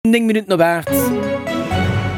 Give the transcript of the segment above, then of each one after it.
9 Minutten op 8.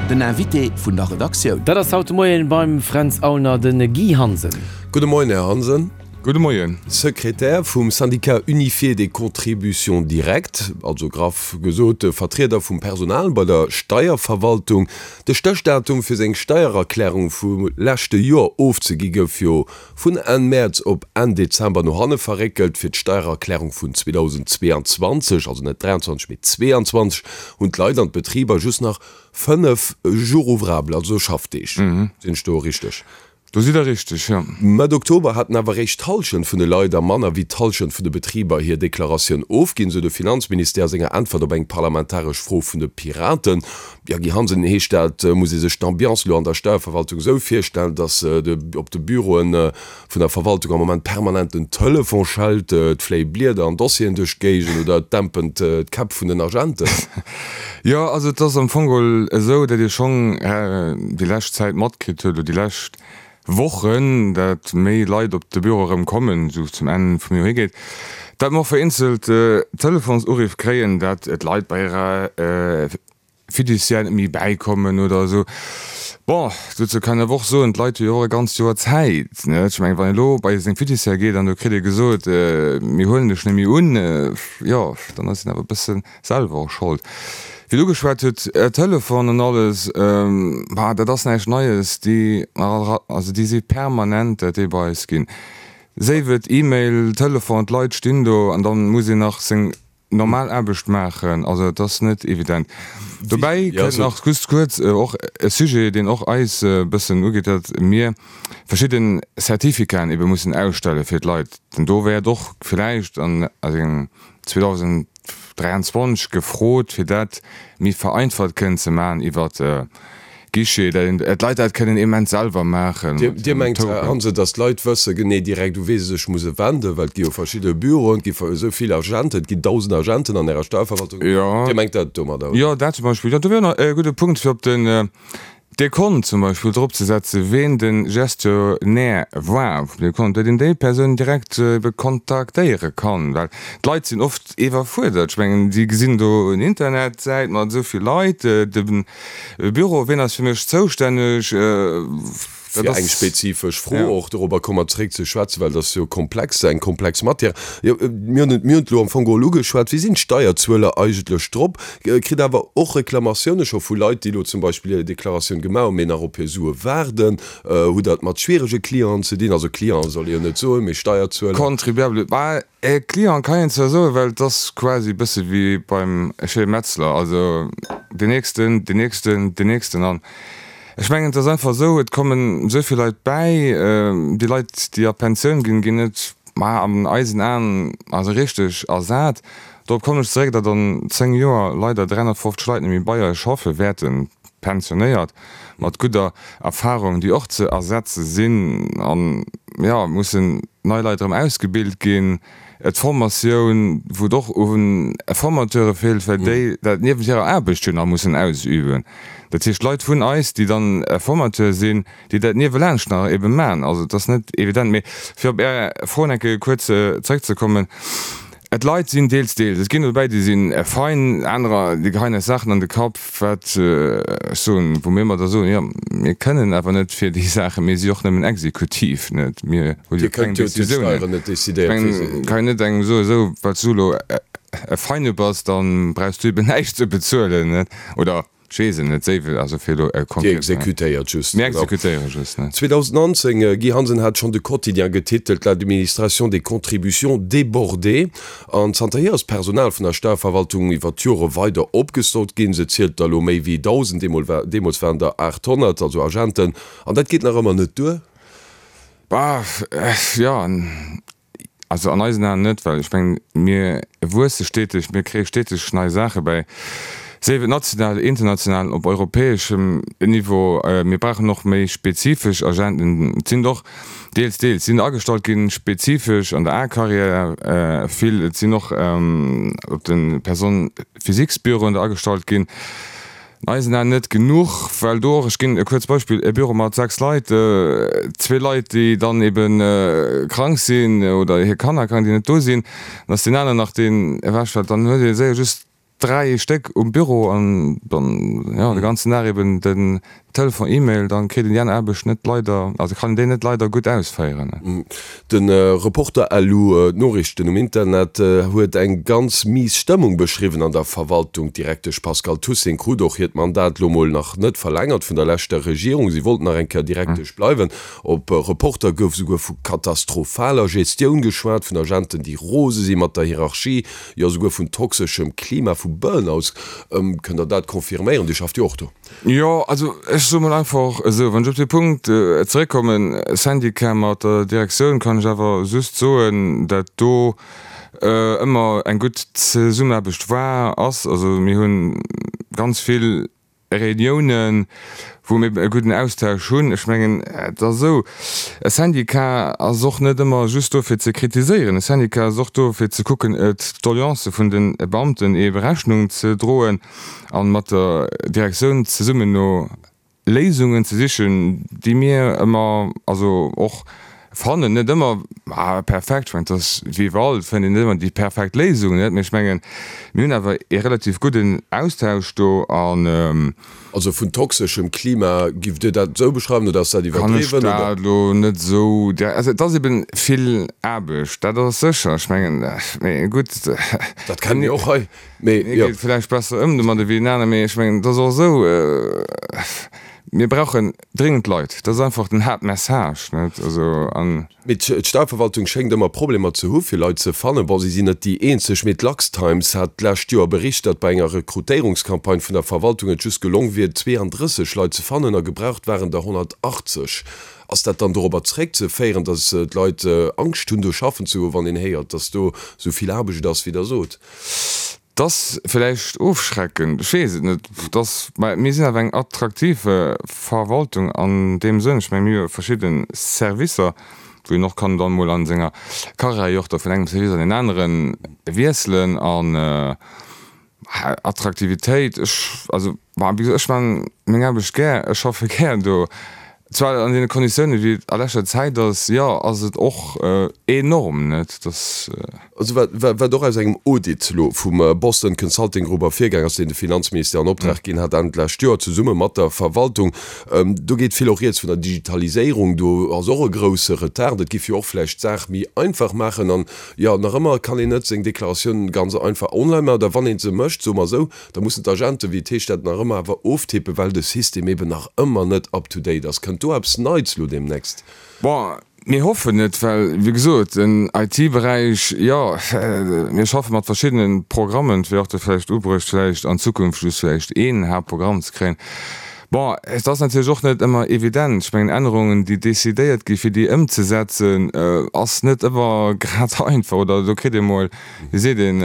Den Invité vun der Redaktioun. Dat ass haut de Moien beim Fränz Aulner de Guy Hansen. Gudde Moien, Här Hansen. Gudde Moien. Sekretär vum Syndicat unifié des contributions directes, also graff gesot Vertrieder vum Personal bei der Steierverwaltung. De Stéchdatum fir seng Steiererklärung vum leschte Joer ofzegi gouf jo Vun Enn Mäerz op Enn Dezember no hanne verréckelt. Fir d'Steiererklärung vun 2022, also net 23, mee 22, hunn d'Leit an d'Betriber just nach 5 Jours ouvrables, also Schaffdeeg. Sinn ech do richteg? Do sidd Der richteg, jo. Mëtt Oktober haten awer eréischt d'Hallschent vun de Leit a manner wéi d'Hallschent vun de Betriber hir Deklaratioun ofginn, sou de Finanzministère a senger Äntwert op eng parlamentaresch Fro vun de Piraten. Jo, Guy Hansen, heescht dat, muss ee sech d'Ambiance elo an der Steierverwaltung esou virstellen, datt op de Büroe vun der Verwaltung am Moment permanent den Telefon schellt, et fléie Blieder an Dossieren duerch d'Géigend oder et dämpen d'Käpp vun den Agenten? Jo, also et ass am Fong geholl esou, datt ee schonn déi lescht Zäit matkritt huet, oder déi lescht Wochen, datt méi Leit op de Büro erëm kommen, esou zum Enn vum Joer higeet, datt mer och vereenzelt Telefonsuriff kréien, datt d'Leit bei hirer Fiduciaire net méi bäikommen oder esou. Bon, dozou kann een awer och soen, d'Leit hu jo och e ganzt Joer Zäit, net? Ech mengen, wann een elo bei seng Fiduciaire geet an do kritt ee gesot, mir huelen dech net méi un, jo, dann ass een awer e bësse selwer och Schold. Wéi Der ugeschwat hutt, Telefon an alles, bah, dat ass näischt Neies, déi, also déi si permanent, dat déi bei eis ginn. Séif et E-Mail, Telefon, d'Leit stinn do an da muss een nach seng normal Aarbecht maachen. Also et ass net evident. Dobäi kënnt nach just kuerz och e Sujet, deen och eis e bëssen ugeet, datt mir verschidde Certificaten ebe mussen ausstelle fir d'Leit. Denn do wäert och villäicht an 2023 gefrot, fir dat méi vereinfacht kënnen ze maachen iwwert Guichet, dat d'Leit dat kënnen immens selwer maachen. Dir mengt, Här Hansen, datt d'Leit wësse genee direkt, u wee se sech musse wenden, well et gi jo verschidde Büroen, et gi esou vill Agenten, et ginn 1.000 Agenten an Ärer Steierverwaltung. Dir mengt dat domadder, oder? Jo, dat zum Beispill. Jo, do wier nach e gudde Punkt, fir op den Dekont zum Beispill dropzesetzen, ween de Gestionnaire war vum Dekont, datt een déi Persoun direkt ebe kontaktéiere kann, well d'Leit sinn oft iwwerfuerdert. Ech mengen, si gesinn do en Internetsäit mat esou vill Leit, de Büro, ween ass fir mech zoustänneg? Dat Fir eng ass, spezifesch Fro, ja. Och dorobber komme mer zeréck ze schwätzen, well dat ass jo komplex, eng komplex Matière. Jo, mir hunn et, mir hunn et elo am Fong geholl ugeschwat. Wéi sinn d'Steierzueler eigentlech drop? Kritt awer och Reklamatioune scho vu Leit, déi elo zum Beispill hir Deklaratioun gemaach hunn, mee nach op hir Sue waarden. Hutt Der et mat schwierege Clienten ze dinn? Also Clienten soll ee jo net soen, mee Steierzueler. Contribuable, bah, E Client kann een zwar soen, well et ass quasi e bësse wéi beim Chez Metzler, also deen nächsten, deen nächsten, deen nächsten. An ech mengen, et ass einfach esou, et kommen esou vill Leit bäi, déi Leit, déi a Pensioun ginn, ginn net, ma an eisen Aen, also richteg ersat. Dorop kommen ech zeréck, datt an 10 Joer leider 350 Leit net méi bei eis schaffe wäerten, pensionéiert, mat gudder Erfahrung, déi och ze ersetze sinn. An, jo, mussen nei Leit erëm ausgebilt ginn, d'Formatioun, wou et och u Formateure feelt, well déi dat niewent hirer Aarbecht jo nach mussen ausüben. Dat heescht, Leit vun eis, déi dann Formateur sinn, déi dat niewelaanscht nach ebe maachen. Also et ass net evident. Mee fir op Är Fro nach eng Kéier kuerz zrëckzekommen, D'Leit sinn deels, deels. Et ginn der dobäi, déi si fein, anerer, déi geheien eis Saachen an de Kapp, wat ech soen, wou mir ëmmer da soen, jo, mir kënnen awer net fir déi Saachen, mir si och nëmmen Exekutiv, net, mir hu jo keng Décisiounen. Ech mengen, kann een net engem soen, esou, well s du elo e Feine bass, da brauchs du eben näischt ze bezuelen, net, oder. Ech weess et net, séiwel, also fir elo e Dir konkret. exekutéiert just. Mir exekutéiere just, ne. 2019, Guy Hansen hat schonn de Quotidien getitelt, L'administration des contributions débordée. An zanterhier ass d'Personal vun der Steierverwaltung iwwer d'Jore weider opgestockt ginn. Se zielt der elo méi wéi 1.000, deemools waren der 800, also Agenten. An dat geet nach ëmmer net duer? Bah, jo. Also an eisen Aen net, well ech mengen, mir wuesse steteg, mir kréie steteg nei Saache bäi, sief et national, international, op europäeschem Niveau. Mir brauchen och méi spezifesch Agenten. Et sinn och deels, deels sinn agestallt ginn, spezifesch an der A-Carrière vill. Et sinn och op de Personnes-physiques-Büroen der agestallt ginn. An eisen Aen net genuch, well do och, ech ginn e kuerzt Beispill, e Büro mat 6 Leit, zwee Leit, déi dann ebe krank sinn oder hir Kanner krank, déi net do sinn, dann ass deen aneren nach deen ewechfält, dann huet ee séier just. 3 Stéck um Büro an dann, jo, de ganzen Dag eben den Telefon, E-Mail, dann kritt een déi aner Aarbecht net leider, also kann een déi net leider gutt ausféieren. De Reporter LU, d'Noriichten um Internet, huet eng ganz mies Stëmmung beschriwwen an der Verwaltung. D'Direktesch Pascale Toussaint krut och hiert Mandat lo mol nach net verlängert vun der leschter Regierung. Si wollt nach eng Kéier Direktesch bleiwen. Op Reporter gouf souguer vu katastrophaler Gestioun geschwat, vun Agenten, déi rose si mat der Hierarchie, jo souguer vun toxeschem Klima, vu Burnouts. Kënnt Der dat confirméieren? Dir schafft jo och do. Jo, also ech soe mol einfach esou, wann ech op dee Punkt zeréckkommen, Syndicat mat der Direktioun, kann ech awer just soen, dat do ëmmer eng gutt Zesummenaarbecht war, ass. Also mir hu ganz vill Reuniounen, wou mir e gudden Austausch hunn. Ech mengen, et ass esou, e Syndicat ass och net ëmmer just do fir ze kritiséieren. E Syndicat ass och do fir ze kucken, d'Doleancë vun de Beamten ebe Rechnung ze droen. An mat der Direktioun zesummen no Léisungen ze sichen, déi mir ëmmer, also och fannen, net ëmmer perfekt, ech mengen, et ass wéi iwwerall, et fënnt een net ëmmer déi perfekt Léisung, net, mee ech mengen, mir hunn awer ee relativ gudden Austausch do an. Also vun toxeschem Klima, giff Dir dat esou beschreiwen oder ass dat iwwerdriwwen? Kann ech dat elo net esou direkt, also et ass eben vill Aarbecht, dat ass sécher, ech mengen, mee gutt. Dat kenne mir och hei. Mee jo. Ee geet vläicht besser ëm domadder wéi en aner, mee ech mengen, et ass och esou, mir brauchen dringend Leit. Dat ass einfach den Haaptmessage, net? Also an. Mee d'Steierverwaltung schéngt ëmmer Problemer ze hu fir Leit ze fannen. Bon, si sinn net déi eenzeg, mee d'LuxTimes hat d'lescht Joer bericht, datt bei enger Rekrutéierungscampagne vun der Verwaltung et just gelong wier, 32 Leit ze fannen a gebraucht waren der 180. Ass dat dann dorobber zeréckzeféieren, datt d'Leit Angscht hunn do schaffen ze goen, wann een héiert, datt do esou vill Aarbecht ass, wéi Der sot? 't ass villäicht ofschreckend, ech weess et net. 't ass, mä mir sinn awer eng attraktiv Verwaltung an deem Sënn. Ech menge mir hu jo verschidde Servicer, wou een och kann dann emol a senger Karriär jo och da vun engem Service an deen anere wiesselen. An Attraktivitéit, ech, also, bon, wéi gesot, ech man meng Aarbecht gär, ech schaffe gär do. Zwar an deene Konditiounen, wéi et a leschter Zäit ass, jo, ass et och enorm, net dass. Also wat, wat och aus engem Audit elo vum Boston Consulting Group ervirgaang ass, deen de Finanzministère an Optrag ginn hat Enn d'lescht Joer, zesumme mat der Verwaltung, do geet vill och rieds vun der Digitaliséierung, do ass och e grouse Retard. Et giff jo och vläicht d'Saach méi einfach maachen. An jo, nach ëmmer kann een net seng Deklaratioun ganz einfach online maachen, oder wann ee se mécht, soe mer esou, Da mussen d'Agenten, wéi et heescht, dat nach ëmmer awer oftippen, well de System eben nach ëmmer net up to date ass. Kënnt do eppes Neits elo deemnächst? Bon, mir hoffen et, well, wéi gesot, den IT-Beräich, jo, mir schaffe mat verschiddene Programmen. Et wier och da vläicht ubruecht, vläicht an Zukunft just vläicht een Haaptprogramm ze kréien. Bon, et ass natierlech och net ëmmer evident. Ech mengen, Ännerungen, déi decidéiert gi fir déi ëmzesetzen, ass net ëmmer grad einfach oder do kritt ee mol, wéi seet een,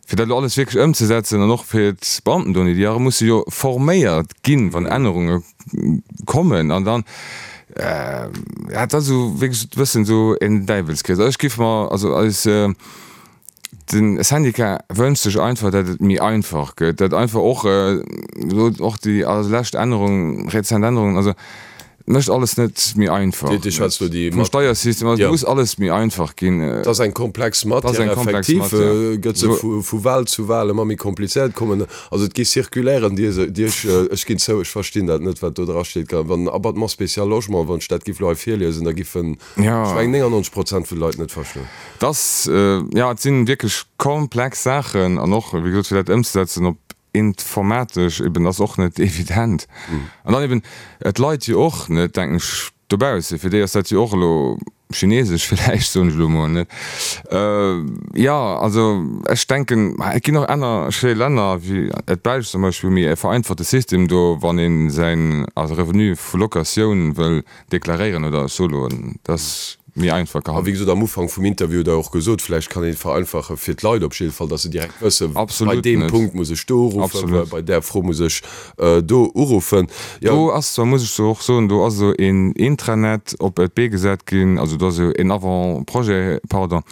fir dat elo alles wierklech ëmzesetzen an och fir d'Beamten do, déi musse jo forméiert ginn, wann Ännerunge kommen an dann, ja, et ass esou wierklech e bëssen esou en Däiwelskrees. Also ech géif mer, also eis, de Syndicat wënscht sech einfach, datt et méi einfach gëtt, datt einfach och elo och déi lescht Ännerung, rezent Ännerungen, also Et mécht alles net méi einfach. Dir schwätzt elo déi Vum Steiersystem, also et muss alles méi einfach ginn. Et ass eng komplex Matière, effektiv gëtt se vu Wahl zu Wahl ëmmer méi komplizéiert kommen. Also et gi Circulairen, déi ech, ech ginn zou, ech verstinn dat net, wat do dra steet. Wann Abattement spécial logement, wann ech dat giff elo hei virliesen, da giffen, ech mengen, 99 Prozent vun de Leit net verstoen. Et ass, jo, et si wierklech komplex Saachen an och, wéi gesot, fir dat ëmzesetzen op Informatesch eben ass och net evident. An dann eben d'Leit jo och net, denken ech, dobausse, fir déi ass dat jo och elo chinesesch villäicht, soen ech elo emol, net? Jo, also ech denken, et ginn och aner schéi Länner wéi d'Belsch zum Beispill, wou méi e vereinfachte System do, wann ee säin also Revenu vu Locatioun wëll deklaréieren oder ech soe lo, dat ass méi einfach A wéi gehandhabt. gesot, am Ufank vum Interview hutt Der och gesot, vläicht kann een et vereinfache fir d'Leit op jidde Fall, datt se direkt wëssen, bei Absolut deem net. Punkt muss ech do uruffen, Absolut. bei där Fro muss ech do uruffen. Jo. Do ass zwar, muss ech so och soen, do ass esou een Intranet op d'Bee gesat ginn, also do ass esou een Avant-projet, pardon,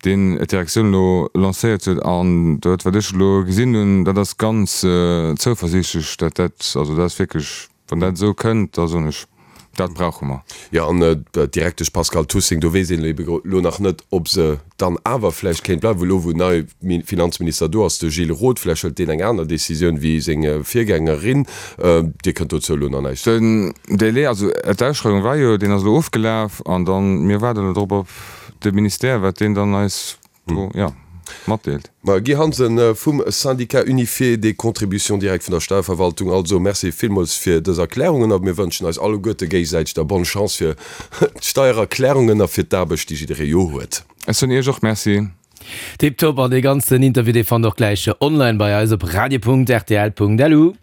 deen d'Direktioun elo lancéiert huet an dat wat ech elo gesinn hunn, dat ass ganz zouversiichtlech, dat dat, also dat ass wierklech Wann dat esou kënnt, da soen ech. Dat brauche mer. Jo, an d'Direktesch Pascale Tussing, do weess een ebe elo nach net, ob se dann awer vläicht kéint bleiwen, elo wou en neie Finanzminister do ass, de Gilles Roth. Vläicht hëlt deen eng aner Decisioun wéi seng Virgängerin. Dir kënnt dozou elo nach näischt soen. Den Délai, also d'Ausschreiwung war jo, deen ass elo ofgelaf an dann, mir waarden elo drop op de Ministère, wat deen dann eis do, jo, matdeelt. Ma Guy Hansen vum Syndicat unifié des contributions directes vun der Steierverwaltung, also Merci villmools fir dës Erklärungen a mir wënschen eis alleguerte géigesäiteg da bonne Chance fir d'Steiererklärungen a fir d'Aarbecht, déi jidderee jo huet. Ech soen Iech och Merci. Tiptop, an dee ganzen Interview dee fannt och gläich online bei eis op radio.rtl.lu.